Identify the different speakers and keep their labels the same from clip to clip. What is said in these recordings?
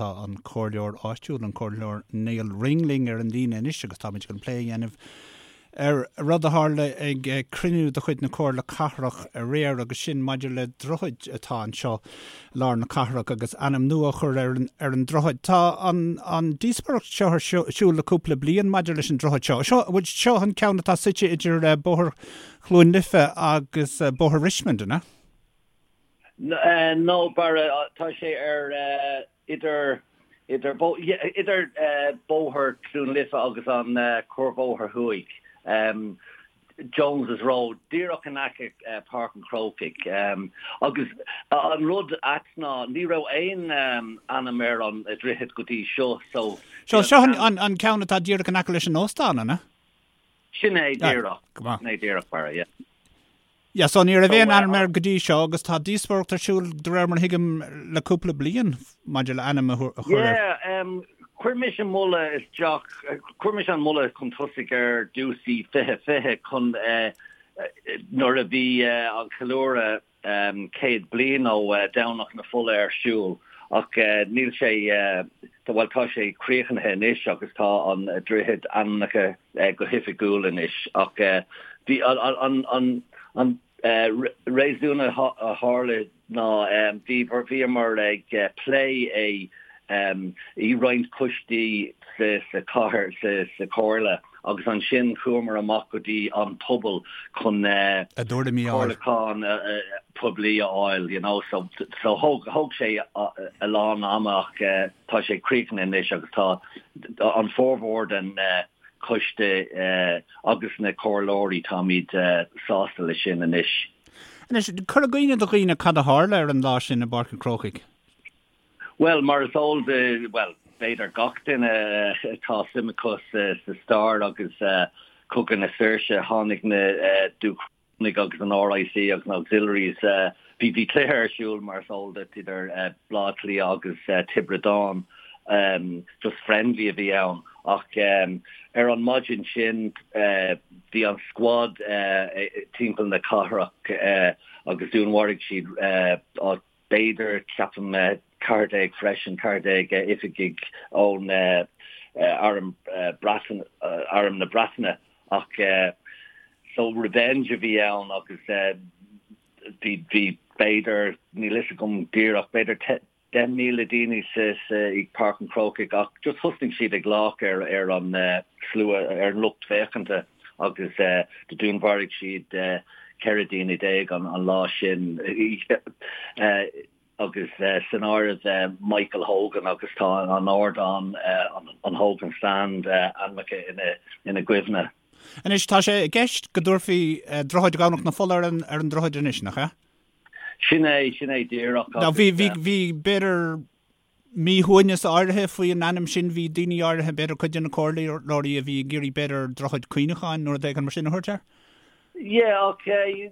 Speaker 1: Tá an comhairleoir áitiúil, an Comhairleoir Nial Ring linn ar an líne anois agus táimid chun plé a dhéanamh ar rud a tharla ag cruinniú de chuid na Comhairle Cathrach aréir agus sin maidir le droichead atá anseo i lár na cathrach agus ainm nua a chur ar an ar an droichead. Tá an an díospóireacht seo ar siúl le cúpla bliain maidir leis an droichead seo. Seo bhuel seo an ceann atá suite idir Bóthar Chluain Life agus Bóthar Richmond, an ea?
Speaker 2: No, Barra, tá sé ar idir idir idir Bóthar Chluain Life agus an Cuarbhóthar Thuaidh, Jones's Road, díreach in aice Páirc an Chrócaigh. Agus an rud ait ná ní raibh aon ainm ar an droichead go dtí seo, so.
Speaker 1: Seo seo an ceann atá díreach in aice leis an óstán, an ea?
Speaker 2: Sin é díreach. Sin é díreach, Barra, yeah.
Speaker 1: Yeah, so ní raibh aon ainm air go dtí seo agus tá díospóireacht ar siúl, de réir mar a thuigim, le cúpla bliain maidir le ainm a chur air.
Speaker 2: Yeah, chuir mise moladh isteach, chuir mise an moladh chun tosaigh ar dtús i 2020 chun nuair a bhí an ceiliúradh 100 bliain ó Domhnach na Fola ar siúl ach níl sé, bhuel tá sé críochnaithe anois agus tá an droichead ainmnithe go hoifigiúil anois ach bhí an an réasún a tharla ná bhí bhíomar ag plé é i roinnt coistí sa chathair sa chomhairle agus ansin chuamar amach go dtí an pobal chun
Speaker 1: a dtuairimí a fháil.
Speaker 2: comhairliúchán poiblí a fháil you know so so thóg thóg sé a lán ama ach tá sé críochnaithe anois agus tá an formhór den choiste agus na comhairleoirí, táimid sásta leis sin anois.
Speaker 1: Anois, cuir i gcuimhne do dhaoine cad a tharla ar an lá sin i bPáirc an Chrócaigh.
Speaker 2: Bhuel, mar is eol do, bhuel, b'fhéidir gach duine atá suim acu sa stair agus Cogadh na Saoirse, tháinig na Dúchrónaigh agus an RIC agus na Auxiliaries, bhí bhí cluiche ar siúl mar is eol duit idir Baile Átha Cliath agus Tiobraid Árann, just friendly a bhí ann ach ar an maidin sin bhí an squad timpeall na cathrach agus dúnmharaigh siad b'fhéidir, ceapaim, 14 freisin, 14 oifigigh ón Arm Breataine, Arm na Breataine ach so revenge a bhí ann agus bhí, bhí b'fhéidir, níl fhios agam díreach, b'fhéidir 10,000 daoine sa, sa, i Páirc an Chrócaigh ach just thosnaigh siad ag glaoch ar, ar an slua, ar an lucht féachanta agus do dúnmharaigh siad 14 daoine an lá sin agus san áireamh Michael Hogan agus tá an ardán, an Hogan Stand, ainmnithe ina gcuimhne.
Speaker 1: Anois, tá sé i gceist go dtabharfaí Droichead Dhomhnach na Fola ar an droichead anois, nach ea?
Speaker 2: Sin é, sin é díreach.
Speaker 1: Now bhí, bhí, bhí, b'fhéidir, míshuaimhneas áirithe faoi an ainm sin. Bhí daoine áirithe, b'fhéidir cuid de na comhairleoirí a bhí ag iarraidh b'fhéidir Droichead Cuimhneacháin nó rud éigin mar sin a thabhairt air.
Speaker 2: Yeah, ok,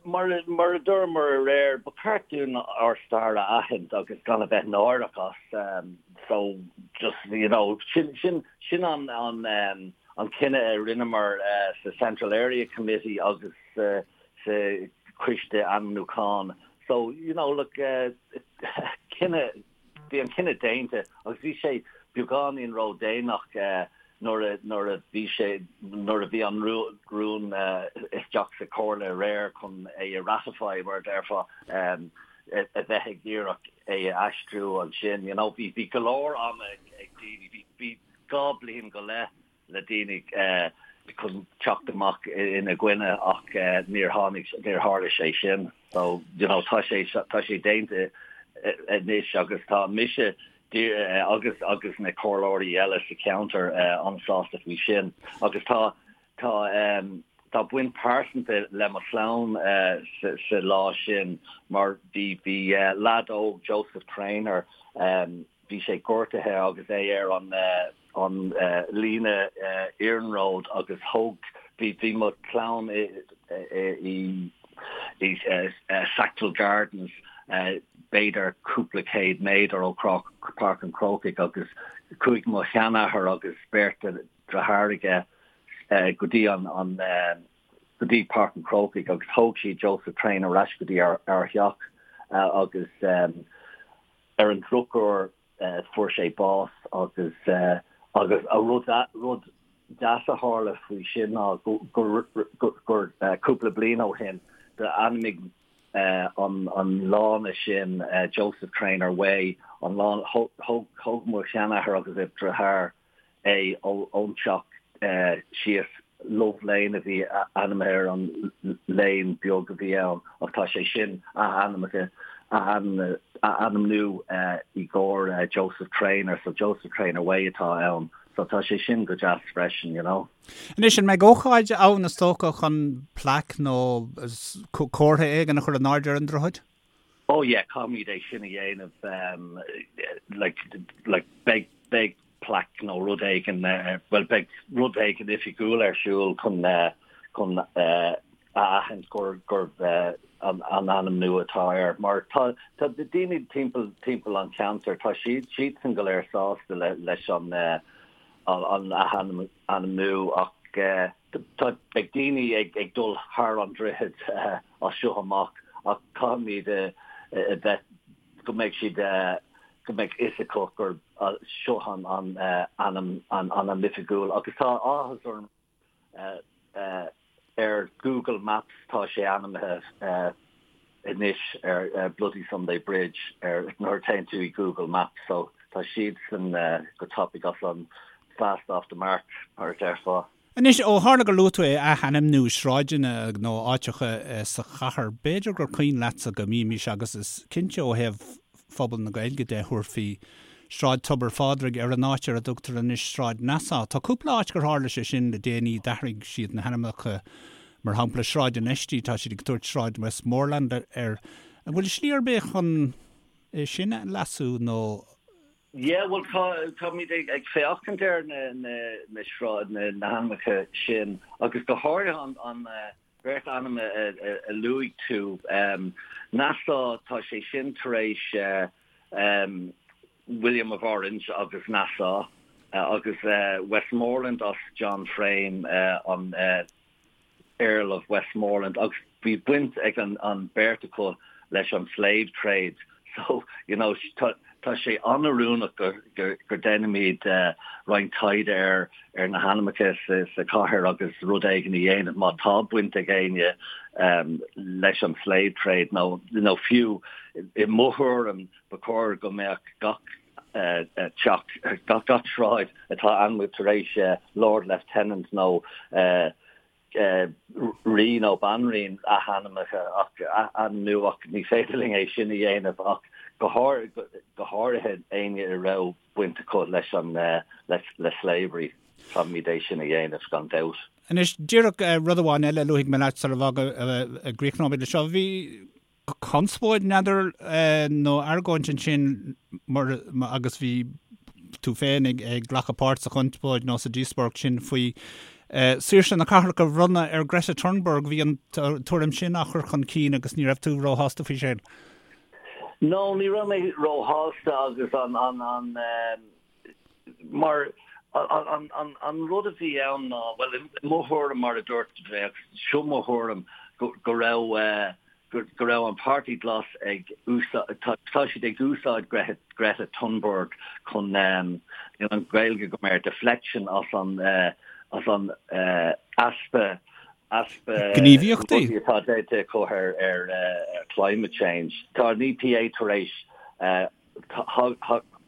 Speaker 2: mar mar a dúramar aréir, ba cheart dúinn ár stair a aithint agus gan a bheith náireach as. So just, you know, sin sin sin an an an cinneadh a rinneamar sa Central Area Committee agus sa sa choiste ainmniúcháin. So, you know, look, cinneadh, bhí an cinneadh déanta agus bhí sé beagáinín ródhéanach nuair a, nuair a bhí sé, nuair a bhí an rún isteach sa chomhairle aréir chun é a ratify, mar a déarfá, a bheith ag iarraidh é a aistriú ansin, you know. Bhí, bhí go leor ama ag daoine, bhí, bhí 2 bliain go leith le daoine chun teacht amach ina gcoinne ach níor tháinig, níor tharla sé sin. So, you know, tá sé, tá sé déanta anois agus tá mise agus agus na comhairleoirí eile sa cheantar an-sásta faoi sin. Agus tá, tá, tá baint pearsanta le mo chlann sa lá sin mar bhí, bhí leaid óg, Joseph Traynor, Bhí sé gortaithe agus é ar an an líne iarnróid agus thóg, bhí, bhí mo chlann i i i Sackville Gardens b'fhéidir cúpla céad méadar ó Páirc an Chrócaigh agus chuaigh mo sheanathair agus beirt deartháir aige go dtí an an go dtí Páirc an Chrócaigh agus thóg siad Joseph Traynor ar ais go dtí ár theach agus Ar an drochuair, fuair sé bás agus agus a rud rud deas a tharla faoi sin ná gur gur cúpla bliain ó shin d'ainmnigh an an lána sin Joseph Traynor Way an lán thóg thóg mo sheanathair agus a dheartháir é ón teach síos Love Lane a bhí ainmnithe ar an lane beag a bhí ann ach tá sé sin athainmnithe athainmniú i gcomhair Joseph Traynor so Joseph Traynor Way atá ann so tá sé sin go deas freisin you know.
Speaker 1: Anois an mbeidh ócáid ann is dócha chun plaic nó comhartha éigin a chur in airde ar an droichead?
Speaker 2: Oh yeah, caithfimid é sin a dhéanamh like like beidh beidh plaic nó rud éigin bhuel beidh rud éigin oifigiúil ar siúl chun chun a aithint gur gurb an an ainm nua atá air mar tá tá daoine timpeall timpeall an cheantair tá siad siadsan go léir sásta le leis an an athainmniú ach Tá beidh daoine ag dul thar an droichead as seo amach ach caithfimid a bheith go mbeidh siad go mbeidh fhios acu gur seo an ainm an ainm oifigiúil agus tá áthas orm ar Google Maps tá sé ainmnithe anois ar Bloody Sunday Bridge ar nuair a théann tú i Google Maps so tá siadsan go tapaidh as an fast off the mark mar a déarfá.
Speaker 1: Anois, ó tharla gur luaigh tú é, athainmniú sráideanna nó áiteacha sa chathair, b'fhéidir gur cuimhin leatsa go mbímis, agus is cinnte ó thaobh phobal na Gaeilge de, thabharfaí Sráid Tobar Phádraig ar an áit ar a dtugtar anois Sráid Nassau. Tá cúpla áit gur tharla sé sin le déanaí, d'athraigh siad na hainmneacha Mar shampla, Sráid an Fheistí, tá siad ag tabhairt Sráid Westmoreland air. An bhfuil slí ar bith chun é sin a leasú nó?
Speaker 2: Yeah, bhuel tá, táimid ag féachaint ar na, na, na sráid, na, na hainmneacha sin agus go háirithe an, an bheirt ainm a, a, a luaigh tú. Nassau, tá sé sin tar éis William of Orange agus Nassau agus Westmoreland as John Frame, an Earl of Westmoreland agus bhí baint ag an beirt acu leis an slave trade so you know tá sé an-oiriúnach go go déanfaimid roinnt taighde ar ar na hainmneacha sa chathair agus rud éigin a dhéanamh má tá baint ag éinne leis an slave trade nó nó fiú i mo thuairim ba chóir go mbeadh gach teach, gach sráid atá ainmnithe tar éis Lord Lieutenant nó rí nó banríon athainmnithe ach athainmniú ach ní féidir linn é sin a dhéanamh ach go háirithe éinne a raibh baint acu leis an le slavery caithfimid é sin a dhéanamh gan dabht.
Speaker 1: Anois díreach rud amháin eile a luafaidh mé leat sula gcríochnóimid leis seo. Bhí conspóid n'fheadar nó argóint ansin mar agus bhí tú féin ag glacadh páirt sa chonspóid nó sa díospóireacht sin faoi saoirse na cathrach a bhronnadh ar Greta Thunberg. Bhí an tuairim sin á chur chun cinn agus ní raibh tú róshásta faoi sin.
Speaker 2: No, ní raibh mé róshásta agus an an an mar an an an rud a bhí ann ná bhuel i mo thuairim mar a dúirt bheadh seo mo thuairim go go raibh go raibh an Páirtí Glas ag úsáid, tá siad ag úsáid Greta Thunberg chun an Ghaeilge go mar deflection as an as an easpa easpa
Speaker 1: gníomhaíochtaí
Speaker 2: atá déanta acu ar ar climate change. Tá an EPA tar éis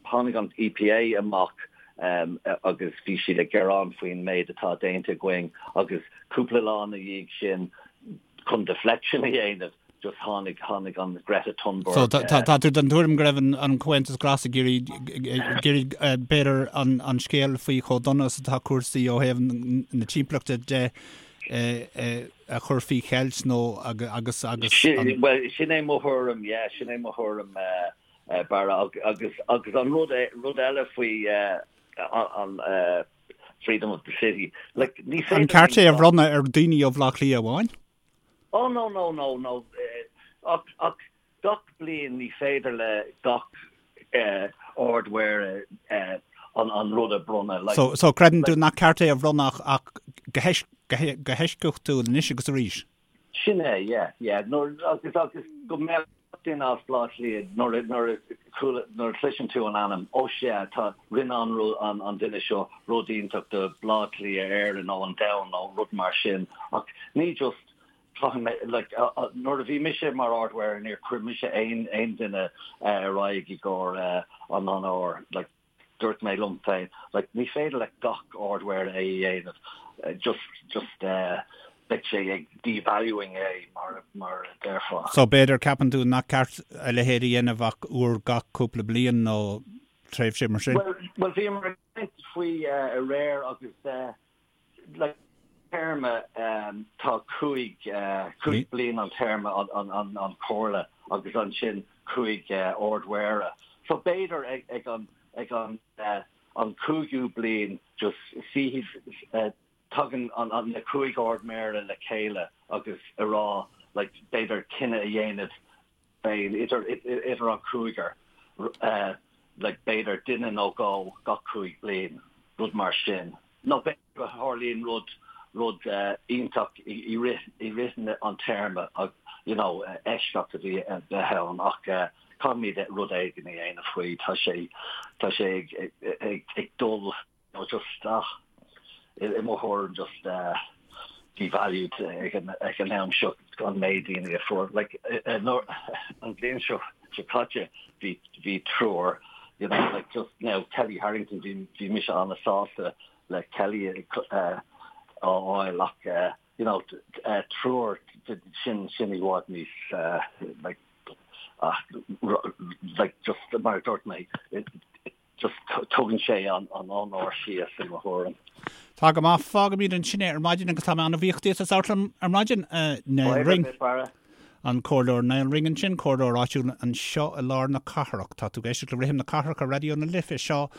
Speaker 2: Tháinig an EPA amach agus bhí siad ag gearán faoin méid atá déanta againn agus cúpla lá ina dhiaidh sin chun deflection a dhéanamh just tháinig tháinig an Greta Thunberg.
Speaker 1: So tá tú den tuairim go raibh an Comhaontas Glas ag iarraidh iarraidh b'fhéidir an an scéal faoi chomh dona is atá cúrsaí ó thaobh na timpeallachta de a chur faoi cheilt nó agus agus
Speaker 2: an. Bhuel sin é mo thuairim yeah sin é mo thuairim Barra agus agus an rud rud eile faoi an freedom of the city like
Speaker 1: ní féidir An ceart é a bhronnadh ar daoine ó Bhaile Átha Cliath amháin?
Speaker 2: Oh no no no no ach ach gach bliain ní féidir le gach Ard-Mhéara an an rud a bronnadh
Speaker 1: like So so creideann tú nach ceart é a bhronnadh ach go go heisceachtúil anois agus arís?
Speaker 2: Sin é yeah yeah nuair agus agus go mbeadh. duine as Baile Átha Cliath nuair nuair a nuair a chloiseann tú an ainm, ó sea, tá, rinne an an an duine seo rud iontach do Bhaile Átha Cliath, Éirinn nó an domhan nó rud mar sin ach ní just caithfidh mé like nuair a bhí mise mar Ard-Mhéara níor chuir mise aon aon duine ar aghaidh i gcomhair an onóir like dúirt mé liom féin like ní féidir le gach Ard-Mhéara é a dhéanamh just just beidh sé ag devaluing é mar mar a déarfá.
Speaker 1: So b'fhéidir ceapann tú nach ceart a leithéid a dhéanamh ach uair gach cúpla bliain nó tréimhse mar sin?
Speaker 2: Well well bhíomar ag caint faoi aréir agus like téarma tá 5 5 bliain an téarma an an an chomhairle agus ansin 5 ardmhéara. So b'fhéidir ag ag an ag an an cúigiú bliain just suífidh tagann an an na 5 ardmhéara le chéile agus a rá like b'fhéidir cinneadh a dhéanamh féin, idir, idir an cúigear, like b'fhéidir duine nó dhó gach 5 bliain, rud mar sin. Nó b'fhéidir go tharlaíonn rud, rud iontach i rith, i rith an téarma, you know, eisceacht a bhí, a bheith ann ach caithfimid rud éigin a dhéanamh faoi, tá sé, tá sé ag, ag, ag dul nó just ach i mo thuairim just devalued ag an ag an am seo an méid daoine a fuair like an bhliain seo seo caite bhí bhí triúr you know like just now Kellie Harrington bhí bhí mise an-sásta le Kellie a fháil ach you know triúr sin sin i bhfad níos like like just mar a dúirt mé Just tugann sé an onóir síos i mo thuairim.
Speaker 1: Tá go maith. Fágaimid ansin é ar maidin agus tá mé an-bhuíoch díot as labhairt liom ar maidin, a Niall Ring. An Comhairleoir Niall Ring ansin, Comhairleoir áitiúil anseo i lár na cathrach. Tá tú ag éisteacht le Rithim na Cathrach ar Raidió na Life. Seo.